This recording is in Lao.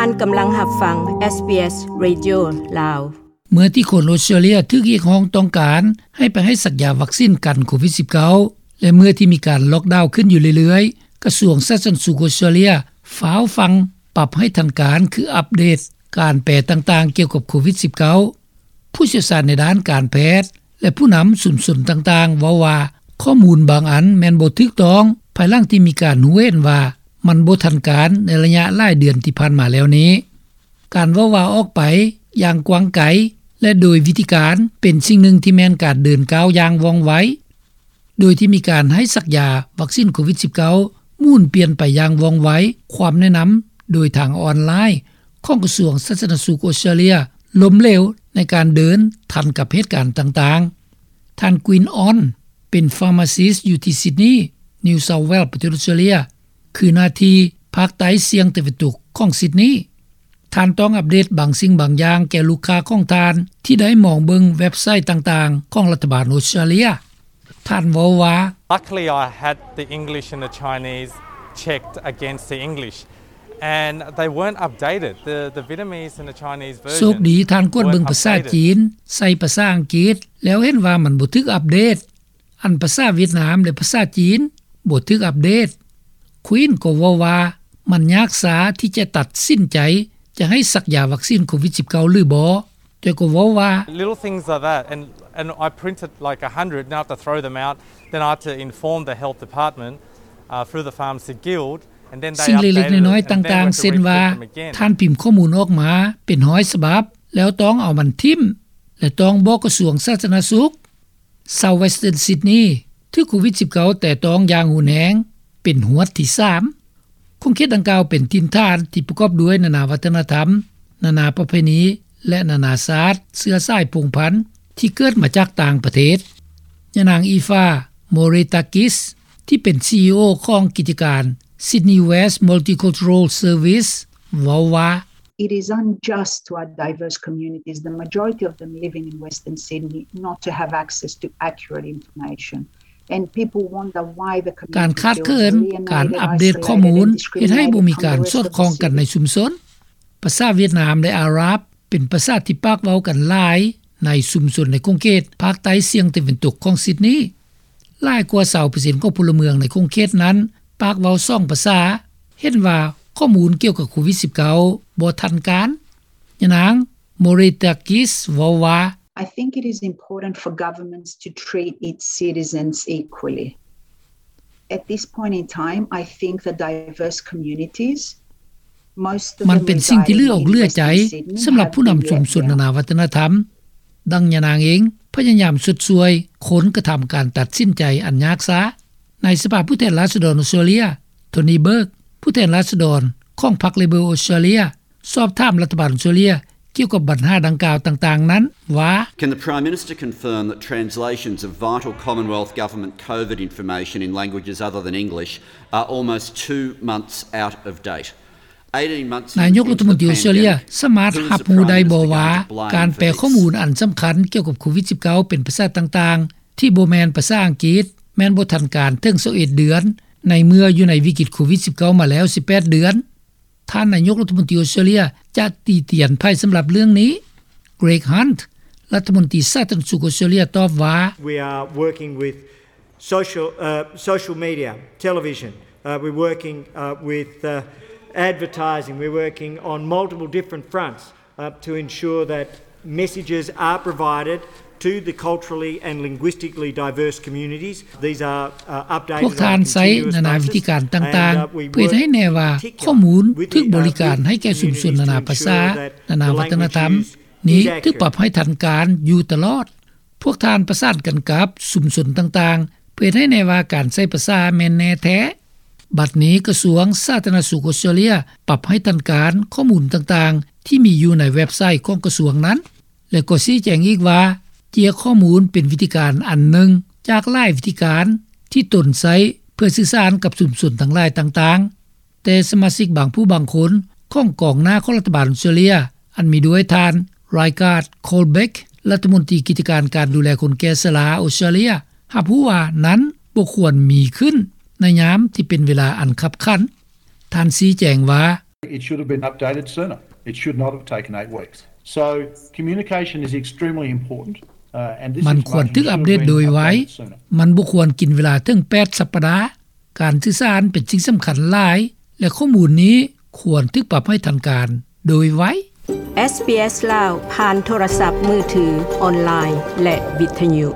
ທ່ານກຳລັງຮັບຟັງ SBS Radio ລາວ. ເມື່ອທີ່ຄົນອອສເຕຣເລຍຖືກຮຽກຮ້ອງຕ້ອງການໃຫ້ໄປໃຫ້ສັກຢາວັກຊິນກັນໂຄວິດສິບເກົ້າ ແລະ ເມື່ອທີ່ມີການລັອກດາວຂຶ້ນຢູ່ເລື້ອຍໆ, ກະຊວງສາທາລະນະສຸກອອສເຕຣເລຍຟ້າວຟັ່ງປັບໃຫ້ທັນການ ຄືອັບເດດການແປຕ່າງໆກ່ຽວກັບໂຄວິດສິບເກົ້າ. ຜູ້ຊ່ຽວຊານໃນດ້ານການແພດ ແລະ ຜູ້ນຳຊຸມຊົນຕ່າງໆເວົ້າວ່າ ຂໍ້ມູນບາງອັນແມ່ນບໍ່ຖືກຕ້ອງ ພາຍຫຼັງທີ່ມີການຮູ້ເຫັນວ່າມັນບໍ່ທັນການໃນໄລຍະຫຼາຍເດືອນທີ່ຜ່ານມາແລ້ວນີ້. ການເວົ້າວ່າອອກໄປຢ່າງກວ້າງໄກ ແລະ ໂດຍວິທີການເປັນສິ່ງໜຶ່ງທີ່ແມ່ນການເດີນກ້າວຢ່າງວ່ອງໄວ, ໂດຍທີ່ມີການໃຫ້ສັກຢາວັກຊິນໂຄວິດສິບເກົ້າໝູນປ່ຽນໄປຢ່າງວ່ອງໄວ, ຄວາມແນະນຳໂດຍທາງອອນລາຍຂອງກະຊວງສາທາລະນະສຸກອອສເຕຣເລຍລົ້ມເຫຼວໃນການເດີນທັນກັບເຫດການຕ່າງໆ. ທ່ານ Gwyn Awn ເປັນ pharmacist ຢູ່ທີ່ Sydney, New South Wales ປະເທດອອສເຕຣເລຍ, ຄືນະທີ່ພາກໃຕ້ສ່ຽງຕາເວັນຕົກຂອງ Sydney. ທ່ານຕ້ອງອັບເດດບາງສິ່ງບາງຢ່າງແກ່ລູກຄ້າຂອງທ່ານ ທີ່ໄດ້ມອງເບິ່ງເວັບໄຊຕ່າງໆຂອງລັດຖະບານອອສເຕຣເລຍ. ທ່ານເວົ້າວ່າ Luckily, I had the English and the Chinese checked against the English, and they weren't updated. The, the Vietnamese and the Chinese version ໂຊກດີ ທ່ານກວດເບິ່ງພາສາຈີນ ໃສ່ພາສາອັງກິດ ແລ້ວເຫັນວ່າມັນບໍ່ຖືກອັບເດດ. ອັນພາສາຫວຽດນາມ ແລະ ພາສາຈີນບໍ່ຖືກອັບເດດ. Gwyn ກໍເວົ້າວ່າ ມັນຍາກຊາທີ່ຈະຕັດສິນໃຈຈະໃຫ້ສັກຢາວັກຊິນໂຄວິດສິບເກົ້າ ຫຼື ບໍ່, ແຕ່ກໍເວົ້າວ່າ Little things like that, and, and I printed, like, a hundred, and I have to throw them out, then I have to inform the health department, uh, through the Pharmacy Guild, and then they update it, and then we have to reprint them again. ສິ່ງເລັກໆນ້ອຍໆຕ່າງໆ ເຊັ່ນວ່າ ທ່ານພິມຂໍ້ມູນອອກມາເປັນຮ້ອຍສະບັບ ແລ້ວຕ້ອງເອົາມັນຖິ້ມ ແລະ ຕ້ອງບອກກະຊວງສາທາລະນະສຸກ. South Western Sydney ຖືກໂຄວິດສິບເກົ້າແຕະຕ້ອງຢ່າງຮຸນແຮງເປັນຫວດທີສາມ. ຂົງເຂດດັ່ງກ່າວເປັນຖິ່ນຖານທີ່ປະກອບດ້ວຍນານາວັດທະນະທຳ, ນານາປະເພນີ ແລະ ນານາຊາດເຊື້ອສາຍພົງພັນທີ່ເກີດມາຈາກຕ່າງປະເທດ. ຍານາງ Eva Moretakis ທີ່ເປັນ CEO ຂອງກິດຈະການ Sydney West Multicultural Service ເວົ້າວ່າ It is unjust to our diverse communities, the majority of them living in Western Sydney, not to have access to accurate information. And people wonder why the community feels alienated, isolated, and discriminated from the rest of the city. ການຂາດເຂີນການອັບເດດຂໍ້ມູນ ເຮັດໃຫ້ບໍ່ມີການສອດຄ່ອງກັນໃນຊຸມຊົນ. ພາສາຫວຽດນາມ ແລະ ອາຣັບ ເປັນພາສາທີ່ປາກເວົ້າກັນຫຼາຍໃນຊຸມຊົນໃນຂົງເຂດພາກໃຕ້ສ່ຽງຕາເວັນຕົກຂອງ Sydney. ຫຼາຍກວ່າຊາວເປີເຊັນຂອງພົນລະເມືອງໃນຂົງເຂດນັ້ນປາກເວົ້າສອງພາສາ, ເຫັນວ່າຂໍ້ມູນກ່ຽວກັບໂຄວິດສິບເກົ້າບໍ່ທັນການ. ຍານາງ Moretakis ເວົ້າວ່າ I think it is important for governments to treat its citizens equally. At this point in time, I think the diverse communities, most of them reside in the city, ມັນເປັນສິ່ງທີ່ເຫຼືອອົກເຫຼືອໃຈສຳລັບຜູ້ນຳຊຸມຊົນນານາວັດທະນະທຳ. ດັ່ງຍານາງເອງພະຍາຍາມຊົດຊ່ວຍຄົນກະທຳການຕັດສິນໃຈອັນຍາກຊາ. ໃນສະພາຜູ້ແທນລາຊະດອນອອສເຕຣເລຍ Tony Burke ຜູ້ແທນລາຊະດອນຂອງພັກ Labor ອອສເຕຣເລຍ ສອບຖາມລັດຖະບານອອສເຕຣເລຍກ່ຽວກັບບັນຫາດັ່ງກ່າວຕ່າງໆນັ້ນວ່າ Can the Prime Minister confirm that translations of vital Commonwealth Government COVID information in languages other than English are almost two months out of date? ນາຍົກລັດຖະມົນຕີອອສເຕຣເລຍສາມາດຮັບຮູ້ໄດ້ບໍ່ວ່າ ການແປຂໍ້ມູນອັນສຳຄັນກ່ຽວກັບໂຄວິດສິບເກົ້າເປັນພາສາຕ່າງໆ ທີ່ບໍ່ແມ່ນພາສາອັງກິດ ແມ່ນບໍ່ທັນການເຖິງຊາວເອັດເດືອນ ໃນເມື່ອຢູ່ໃນວິກິດໂຄວິດສິບເກົ້າມາແລ້ວສິບແປດເດືອນ. ທ່ານນາຍົກລັດຖະມົນຕີອອສເຕຣເລຍຈະຕີຕຽນໃຜສຳລັບເລື່ອງນີ້? Greg Hunt ລັດຖະມົນຕີສາທາລະນະສຸກອອສເຕຣເລຍຕອບວ່າ We are working with social, uh, social media, television. Uh, we're working, uh, with, uh, advertising. We're working on multiple different fronts, uh, to ensure that messages are provided to the culturally and linguistically diverse communities. These are, uh, updated on a continuous basis. ພວກທ່ານໃຊ້ນານາວິທີການຕ່າງໆ ເພື່ອເຮັດໃຫ້ແນ່ວ່າຂໍ້ມູນຖືກບໍລິການໃຫ້ແກ່ຊຸມຊົນນານາພາສາ, ນານາວັດທະນະທຳນີ້ຖືກປັບໃຫ້ທັນການຢູ່ຕະຫຼອດ. ພວກທ່ານປະສານກັນກັບຊຸມຊົນຕ່າງໆ ເພື່ອເຮັດໃຫ້ແນ່ວ່າການໃຊ້ພາສາແມ່ນແນ່ແທ້. ບັດນີ້ກະຊວງສາທາລະນະສຸກອອສເຕຣເລຍປັບໃຫ້ທັນການຂໍ້ມູນຕ່າງໆທີ່ມີຢູ່ໃນເວັບໄຊຂອງກະຊວງນັ້ນ ແລະ ກໍຊີ້ແຈງອີກວ່າ ເຈ້ຍຂໍ້ມູນເປັນວິທີການອັນໜຶ່ງຈາກຫຼາຍວິທີການທີ່ຕົນໃຊ້ເພື່ອສື່ສານກັບຊຸມຊົນທັງຫຼາຍຕ່າງໆ. ແຕ່ສະມາຊິກບາງຜູ້ບາງຄົນຂອງກອງໜ້າຂອງລັດຖະບານອອສເຕຣເລຍ ອັນມີດ້ວຍທ່ານ Rygaard Colbeck ລັດຖະມົນຕີກິດຈະການການດູແລຄົນແກ່ຊະລາອອສເຕຣເລຍ ຮັບຮູ້ວ່ານັ້ນບໍ່ຄວນມີຂຶ້ນໃນຍາມທີ່ເປັນເວລາອັນຄັບຂັນ. ທ່ານຊີ້ແຈງວ່າ It should have been updated sooner. It should not have taken eight weeks. So communication is extremely important. Uh, and this ມັນຄວນຖືກອັບເດດໂດຍໄວ. ມັນບໍ່ຄວນກິນເວລາເຖິງແປດສັບປະດາ. ການສື່ສານເປັນສິ່ງສຳຄັນຫຼາຍ ແລະ ຂໍ້ມູນນີ້ຄວນຖືກປັບໃຫ້ທັນການໂດຍໄວ. ເອສບີເອສ ລາວ ຜ່ານໂທລະສັບມືຖື, ອອນລາຍ ແລະ ວິທຍຸ.